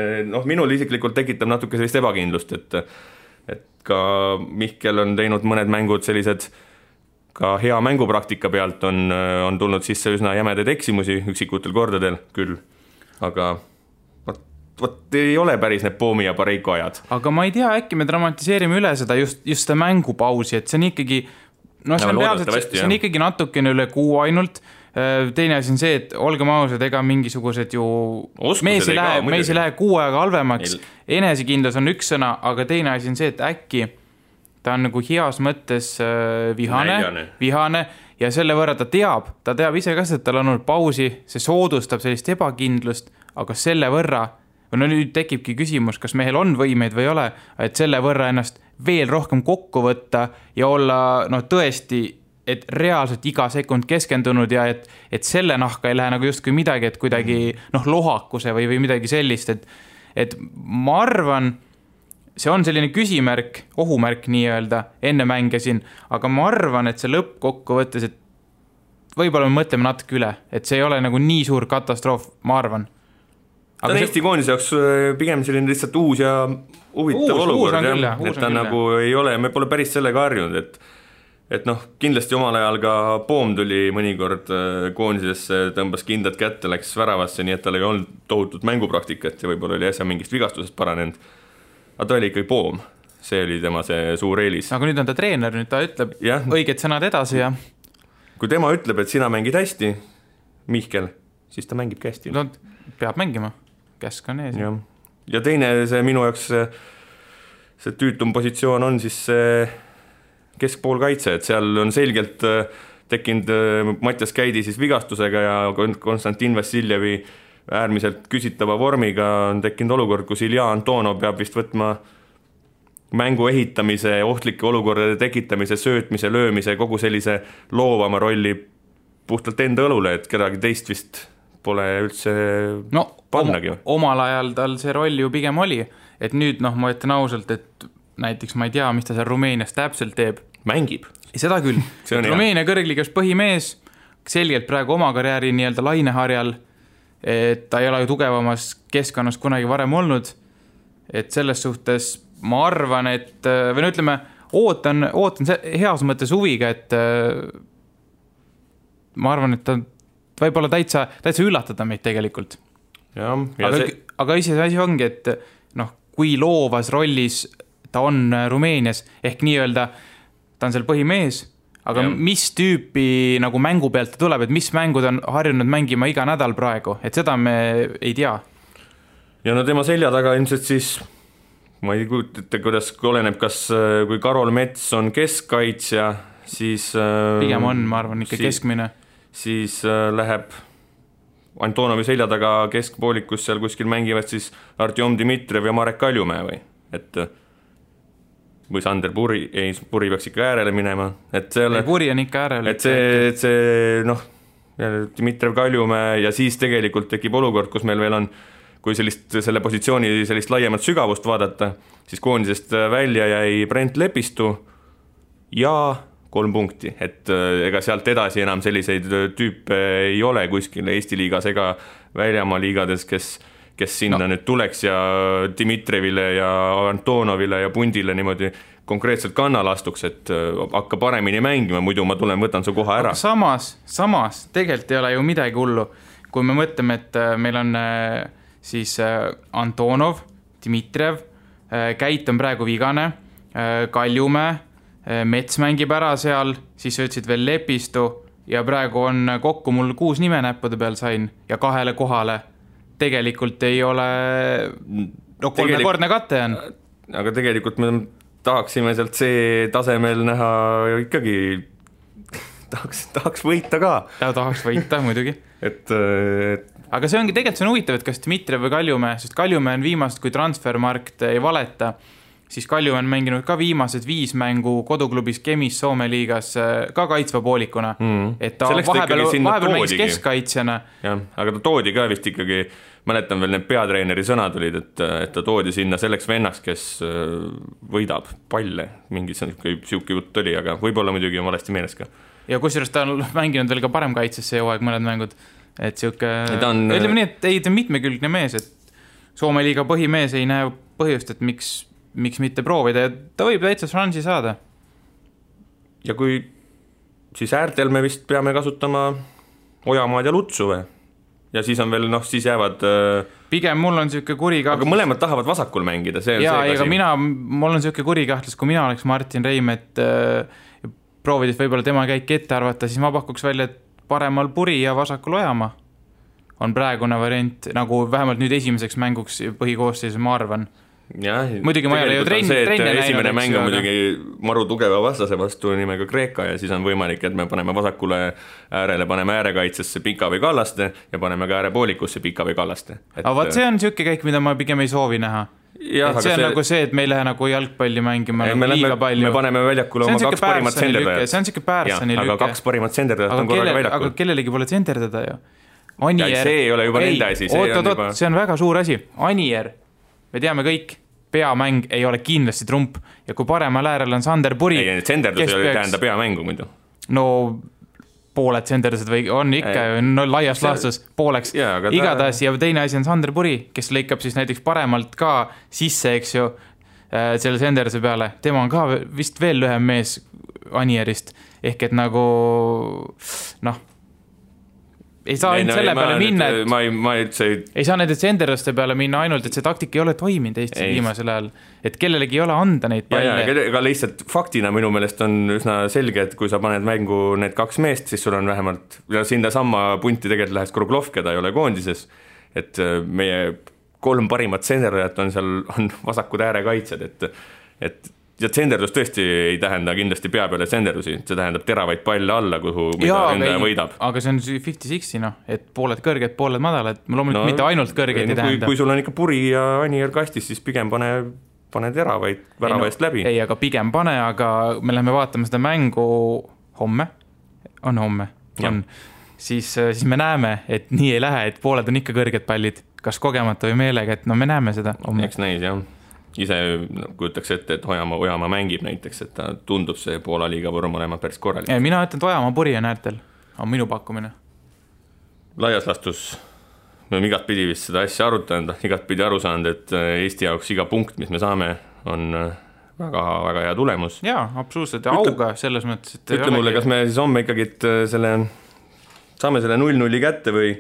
minul isiklikult tekitab natuke sellist ebakindlust, et ka Mihkel on teinud mõned mängud sellised, ka hea mängupraktika pealt on tulnud sisse üsna jämedaid eksimusi üksikutel kordadel küll, aga vot ei ole päris need Poomi ja Pareiko ajad. Aga ma ei tea, äkki me dramatiseerime üle seda just seda mängupausi, et see on ikkagi see on ikkagi natukene üle kuu ainult. Teine asi on see, et olgem ausad, ega mingisugused ju mees ei lähe kuu aega halvemaks. Enesekindlus on üks sõna, aga teine asi on see, et äkki ta on nagu heas mõttes vihane ja selle võrra ta teab ise ka, et tal on olnud pausi, see soodustab sellist ebakindlust, aga selle võrra nüüd tekibki küsimus, kas mehel on võimeid või ei ole, et selle võrra ennast veel rohkem kokku võtta ja olla tõesti, et reaalselt iga sekund keskendunud ja et selle nahka ei lähe nagu justkui midagi, et kuidagi lohakuse või midagi sellist, et ma arvan, see on selline küsimärk, ohumärk nii-öelda, enne mängisin, aga ma arvan, et see lõppkokku võttes, et võib-olla me mõtleme natuke üle, et see ei ole nagu nii suur katastroof, ma arvan. Ta on Eesti koondise jaoks pigem selline lihtsalt uus ja huvitav olukord, et ta nagu ei ole, me pole päris sellega harjunud, et kindlasti omal ajal ka Poom tuli mõnikord koondisesse, tõmbas kindlad kätte, läks väravasse, nii et tal ei olnud tohutut mängupraktikat ja võib-olla oli äsja mingist vigastusest paranenud. Aga ta oli ikkagi Poom, see oli tema see suur eelis. Aga nüüd on ta treener, nüüd ta ütleb õiged sõnad edasi ja... Kui tema ütleb, et sina mängid hästi, Mihkel, siis ta mängib hästi. No, peab mängima. Käsk on ees. Ja teine see minu jaoks see tüütum positsioon on siis keskpoolkaitse, et seal on selgelt tekkinud Mattias Käidi siis vigastusega ja Konstantin Vassiljevi äärmiselt küsitava vormiga on tekkinud olukord, kus Ilja Antonov peab vist võtma mängu ehitamise, ohtlike olukordade tekitamise, söötmise, löömise, kogu sellise loovama rolli puhtalt enda õlule, et kedagi teist vist pole üldse pannagi. Omal ajal tal see roll ju pigem oli, et nüüd ma ütlen ausalt, et näiteks ma ei tea, mis ta seal Rumeenias täpselt teeb. Mängib. Seda küll. Rumeenia kõrgliigas põhimees, selgelt praegu oma karjääri nii-öelda laineharjal, et ta ei ole ju tugevamas keskkonnas kunagi varem olnud, et selles suhtes ma arvan, et või ütleme, ootan heas mõttes huviga, et ma arvan, et ta võib-olla täitsa üllatada meid tegelikult. Aga asi ongi, et kui loovas rollis ta on Rumeenias, ehk nii-öelda ta on seal põhimees, aga mis tüüpi nagu mängu pealt ta tuleb, et mis mängud on harjunud mängima iga nädal praegu, et seda me ei tea. Ja tema selja taga ilmselt siis, ma ei kujutate, kuidas oleneb, kas kui Karol Mets on keskkaitsja, siis pigem on, ma arvan, ikka keskmine. Siis läheb Antonovi selja taga keskpoolikus seal kuskil mängivad siis Artjom Dmitrijev ja Marek Kaljumäe või Sander Puri peaks ikka äärele minema. Puri on ikka äärele. Et see Dmitrijev Kaljumäe ja siis tegelikult tekib olukord, kus meil veel on, kui selle positsiooni sellist laiemat sügavust vaadata, siis koondisest välja jäi Brent Lepistu ja 3 punkti, et ega sealt edasi enam selliseid tüüpe ei ole kuskil Eesti liigas ega väljamaa liigades, kes sinna nüüd tuleks ja Dmitrijevile ja Antonovile ja Pundile niimoodi konkreetselt kannal astuks, et hakka paremini mängima, muidu ma võtan su koha ära. Aga samas tegelikult ei ole ju midagi hullu, kui me mõtleme, et meil on siis Antonov, Dmitrijev, Käit on praegu vigane, Kaljumäe, Mets mängib ära seal, siis ütlesid veel Lepistu ja praegu on kokku mul 6 nime näppude peal sain ja 2 kohale. Tegelikult ei ole 3-kordne kate on. Aga tegelikult me tahaksime sealt see tasemel näha ikkagi tahaks võita ka. Tahaks võita muidugi. Aga see ongi tegelikult see on huvitav, et kas Dmitrijev või Kaljumäe, sest Kaljumäe on viimast, kui transfermarkt ei valeta, siis Kaljumäe on mänginud ka viimased 5 mängu koduklubis Kemis Soome liigas ka kaitsva poolikuna. Et ta vahepeal mängis keskkaitsjana. Aga ta toodi ka vist ikkagi, mäletan veel need peatreeneri sõnad olid, et ta toodi sinna selleks vennaks, kes võidab palle. Mingi siuke jutt oli, aga võib-olla muidugi on valesti meeles ka. Ja kusjuures ta on mänginud veel ka parem kaitses see hooaeg mõned mängud. Et siuke, ütleme nii, et ei ta mitmekülgne mees, et Soome liiga põhimees ei näe põhjust, et miks mitte proovida ja ta võib täitsa šansi saada. Ja kui siis äärtel me vist peame kasutama Ojamaad ja Lutsu või? Ja siis on veel, siis jäävad pigem mul on siuke kurikahtlus. Aga mõlemad tahavad vasakul mängida, see on see kasi. Mul on siuke kurikahtlus, kui mina oleks Martin Reimet proovides võib-olla tema käik ette arvata, siis ma pakuks välja, et paremal Puri ja vasakul Ojamaa on praegune variant, nagu vähemalt nüüd esimeseks mänguks põhikoosseisus, ma arvan. Muidugi ma ei ole ju trenni näinud. Esimene mäng on muidugi maru tugeva vastase vastu nimega Kreeka ja siis on võimalik, et me paneme vasakule äärele, paneme äärekaitsesse Pika või Kallaste ja paneme ka äärepoolikusse Pika või Kallaste. Aga vaat see on siuke käik, mida ma pigem ei soovi näha. Et see on nagu see, et me ei lähe nagu jalgpalli mängima liiga palju. Me paneme väljakule oma 2 parimat senderdajat. See on siuke Pärssani lüke. Aga 2 parimat senderdajat on korraga väljakul. Aga kellelegi pole senderdada ju. See ei ole juba nende asi. See on väga suur asi. Anier, me teame kõik, peamäng ei ole kindlasti trump ja kui paremal äärel on Sander Puri. Ei, senderdus ei ole tähenda peamängu muidu. No pooled senderdused või on ikka laias laastus pooleks. Igatahes ja teine asi on Sander Puri, kes lõikab siis näiteks paremalt ka sisse, eks ju, selle senderduse peale. Tema on ka vist veel lühem mees Anierist. Ehk et nagu, ei saa ainult selle peale minna, ei saa nende senderduste peale minna ainult, et see taktika ei ole toiminud Eestis viimasel ajal, et kellelegi ei ole anda neid palle. Aga lihtsalt faktina minu meelest on üsna selge, et kui sa paned mängu need 2 meest, siis sul on vähemalt, sinna sama punti tegelikult läheks Kruglov, keda ei ole koondises, et meie 3 parimat senderdajat on seal on vasakud äärekaitsed, et ja senderdus tõesti ei tähenda kindlasti pea peale senderdusi, see tähendab teravaid palle alla, mida ründaja võidab. Aga see on 50-60, et pooled kõrged, pooled madalad, loomulikult mitte ainult kõrgeid ei tähenda. Kui sul on ikka Puri ja Anier kastis, siis pigem pane teravaid väravaist läbi. Ei, aga pigem pane, aga me läheme vaatama seda mängu homme. On homme. On. siis me näeme, et nii ei lähe, et pooled on ikka kõrged pallid, kas kogemata või meelega, et no me näeme seda. Eks näis, jah. Ise kujutaks ette, et Ojamaa mängib näiteks, et ta tundub see Poola liiga vorm olema päris korralik. Mina ütlen, et Ojamaa puri on äärtel, on minu pakkumine. Laias lastus me oleme igat pidi vist seda asja arutanud, igat pidi aru saanud, et Eesti jaoks iga punkt, mis me saame, on väga, väga hea tulemus. Jaa, absoluutselt, ja auga selles mõttes, et ütle mulle, kas me siis homme ikkagi saame selle 0-0 kätte või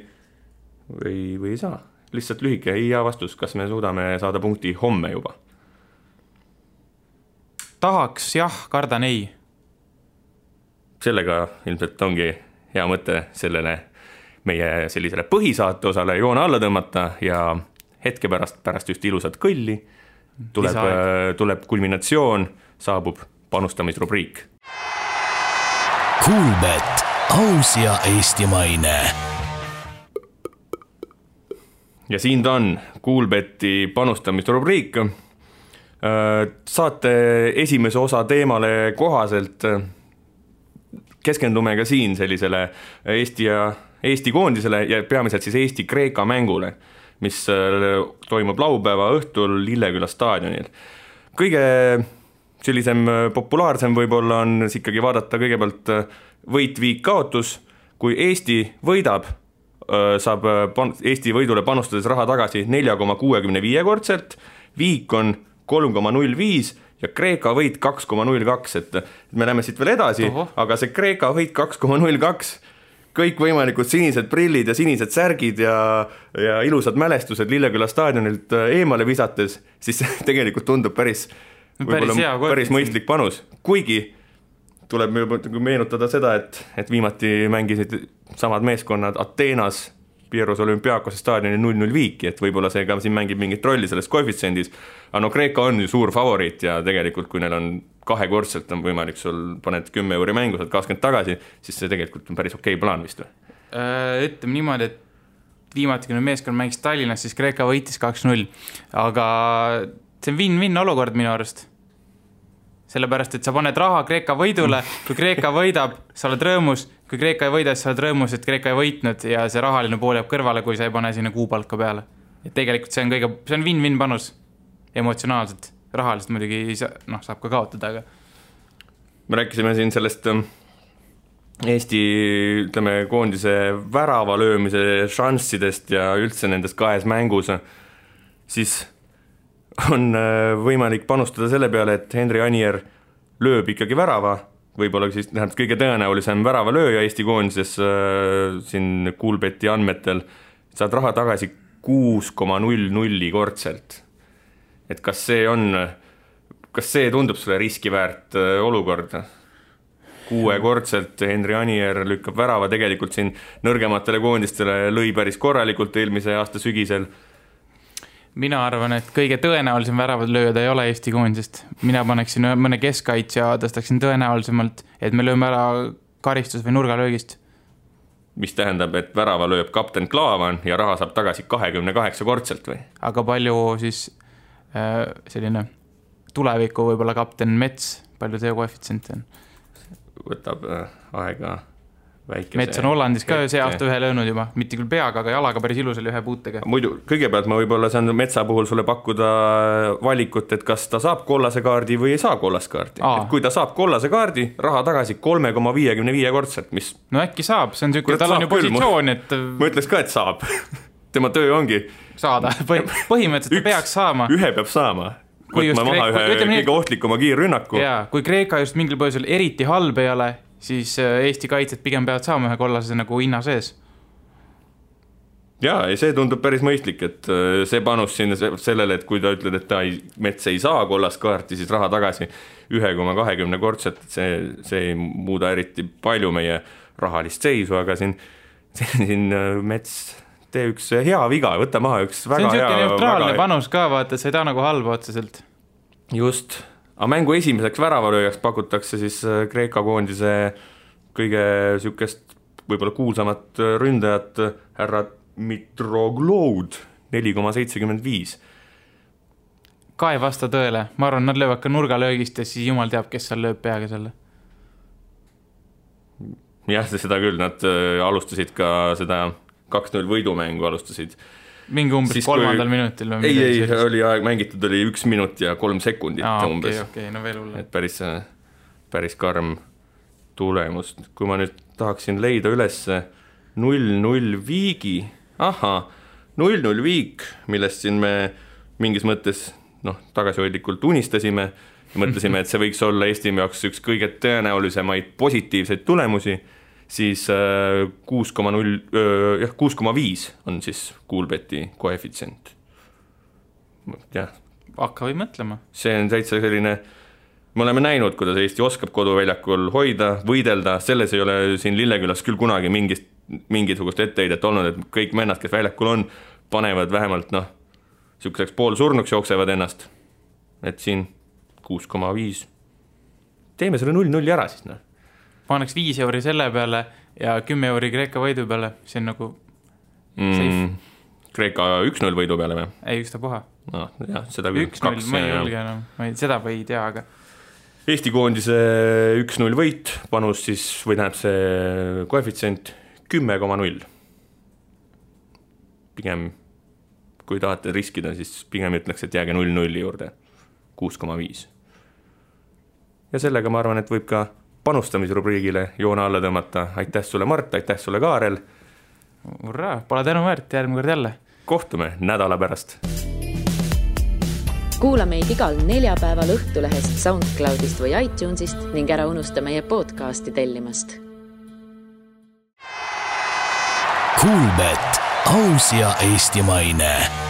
ei saa? Lihtsalt lühike ja vastus, kas me suudame saada punkti homme juba? Tahaks, jah, kardan ei. Sellega ilmselt ongi hea mõte sellele meie sellisele põhisaate osale joone alla tõmmata ja hetke pärast just ilusat kõlli tuleb kulminatsioon, saabub panustamisrubriik. Kuulbet, aus ja eestimaine. Ja siin ta on, Kuulbeti panustamisrubriik. Saate esimese osa teemale kohaselt keskendume ka siin sellisele Eesti koondisele ja peamiselt siis Eesti-Kreeka mängule, mis toimub laupäeva õhtul Lilleküla staadionil. Kõige sellisem populaarsem võib-olla on ikkagi vaadata kõigepealt võit, viik, kaotus. Kui Eesti võidab, saab Eesti võidule panustades raha tagasi 4,65 kordselt, viik on 3,05 ja Kreeka võit 2,02, et me läheme siit veel edasi, aga see Kreeka võit 2,02 kõik võimalikud sinised prillid ja sinised särgid ja ilusad mälestused Lilleküla staadionilt eemale visates, siis tegelikult tundub päris mõistlik panus. Kuigi tuleb meenutada seda, et viimati mängisid samad meeskonnad Ateenas Pieros Olümpiakose staadioni 0-0 viiki, et võib-olla see ka siin mängib mingit rolli selles koefitsendis. Aga no Kreeka on ju suur favoriit ja tegelikult kui neil on kahekordselt on võimalik sul paned 10 euri mängu, saad 20 tagasi, siis see tegelikult on päris okei plaan vist või? Ütleme niimoodi, et viimati kui meeskond mängis Tallinnas, siis Kreeka võitis 2-0, aga see on win-win olukord minu arust. Sellepärast, et sa paned raha Kreeka võidule, kui Kreeka võidab, sa oled rõõmus, kui Kreeka ei võida, siis sa oled rõõmus, et Kreeka ei võitnud ja see rahaline pool jääb kõrvale, kui sa ei pane sinna kuupalka peale. Et tegelikult see on win-win panus emotsionaalselt, rahaliselt muidugi saab ka kaotada, aga me rääkisime siin sellest Eesti koondise värava löömise šanssidest ja üldse nendest kahes mängus, siis on võimalik panustada selle peale, et Henri Anier lööb ikkagi värava, võib-olla siis kõige tõenäolisem väravalööja Eesti koondises siin Kuulbeti andmetel, saad raha tagasi 6,00 kordselt. Et kas see tundub sulle riskiväärt olukord? 6 kordselt Henri Anier lükkab värava, tegelikult siin nõrgematele koondistele lõi päris korralikult eelmise aasta sügisel. Mina arvan, et kõige tõenäolisem väravad lööda ei ole Eesti koondisest. Mina paneksin mõne keskkaitsja, tõstaksin tõenäolisemalt, et me lööme ära karistus või nurgalöögist. Mis tähendab, et värava lööb kapten Klaavan ja raha saab tagasi 28 kordselt või? Aga palju siis selline tuleviku võib-olla kapten Mets, palju see koefitsient on? Võtab aega väikese. Mets on Hollandis ka see aasta ühe löönud juba, mitte küll peaga, aga jalaga päris ilusal ühe puutega. Muidu, kõigepealt ma võib-olla saan Metsa puhul sulle pakkuda valikut, et kas ta saab kollase kaardi või ei saa kollase kaardi. Et kui ta saab kollase kaardi, raha tagasi 3,55 kordselt, mis... No äkki saab, see on tükk, tal on ju positsioon, et... Ma ütleks ka, et saab. Tema töö ongi... Saada, põhimõtteliselt ta peaks saama. Ühe peab saama. Võtma maha ühe kõige ohtlikuma kiirrünnaku. Jaa, kui Kreeka just mingil põhjusel eriti halb ei ole, siis Eesti kaitsed pigem peavad saama ühe kollase nagu hinna sees. Jaa, ja see tundub päris mõistlik, et see panus siin sellele, et kui ta ütled, et Mets ei saa kollast kaarti, siis raha tagasi 1,20 kordselt, see ei muuda eriti palju meie rahalist seisu, aga siin Mets tee üks hea viga, võta maha üks väga hea... See on selline neutraalne panus ka, vaata, see ei ta nagu halba otseselt. Just. Aga mängu esimeseks väravalööjaks pakutakse siis Kreeka koondise kõige sükest võib-olla kuulsamat ründajat härra Mitrogloud 4,75. Ka ei vasta tõele. Ma arvan, nad löövad ka nurgalöögist ja siis jumal teab, kes seal lööb peaga selle. jah, seda küll, nad alustasid ka seda 2-0 võidumängu alustasid. Mingi umbes 3. minutil? Ei, oli aeg mängitud, oli 1 minut ja 3 sekundit umbes. Okei, no veel hullem. Et päris karm tulemus. Kui ma nüüd tahaksin leida üles 0-0 viigi, 0-0 viik, millest siin me mingis mõttes tagasihoidlikult unistasime ja mõtlesime, et see võiks olla Eesti jaoks üks kõige tõenäolisemaid positiivseid tulemusi, siis 6,5 on siis Kuulbeti koefitsient. Jah. Hakka või mõtlema. See on täitsa selline, me oleme näinud, kuidas Eesti oskab koduväljakul hoida, võidelda, selles ei ole siin Lillekülas küll kunagi mingisugust etteheidet olnud, et kõik mennad, kes väljakul on, panevad vähemalt selliseks poolsurnuks jooksevad ennast. Et siin 6,5. Teeme selle 0-0 ära siis. Paneks 5 euri selle peale ja 10 euri Kreeka võidu peale. See on nagu safe. Kreeka 1-0 võidu peale või? Ei, ükstapuha. No, jah, seda küll 1-0, ma ei julge enam. Seda või ei tea, aga Eesti koondise 1-0 võit, panus siis, või tähendab see koefitsient 10,0. Pigem, kui tahate riskida, siis pigem ütleks, et jääge 0-0 juurde, 6,5. Ja sellega ma arvan, et võib ka panustamisrubriigile joone alla tõmmata. Aitäh sulle, Mart, aitäh sulle, Kaarel. Urraa, pole tänu väärt, järgmine kord jälle. Kohtume nädala pärast. Kuula meid igal neljapäeval Õhtulehest, SoundCloudist või iTunesist ning ära unusta meie podcasti tellimast. Kuulbet, aus ja eestimaine.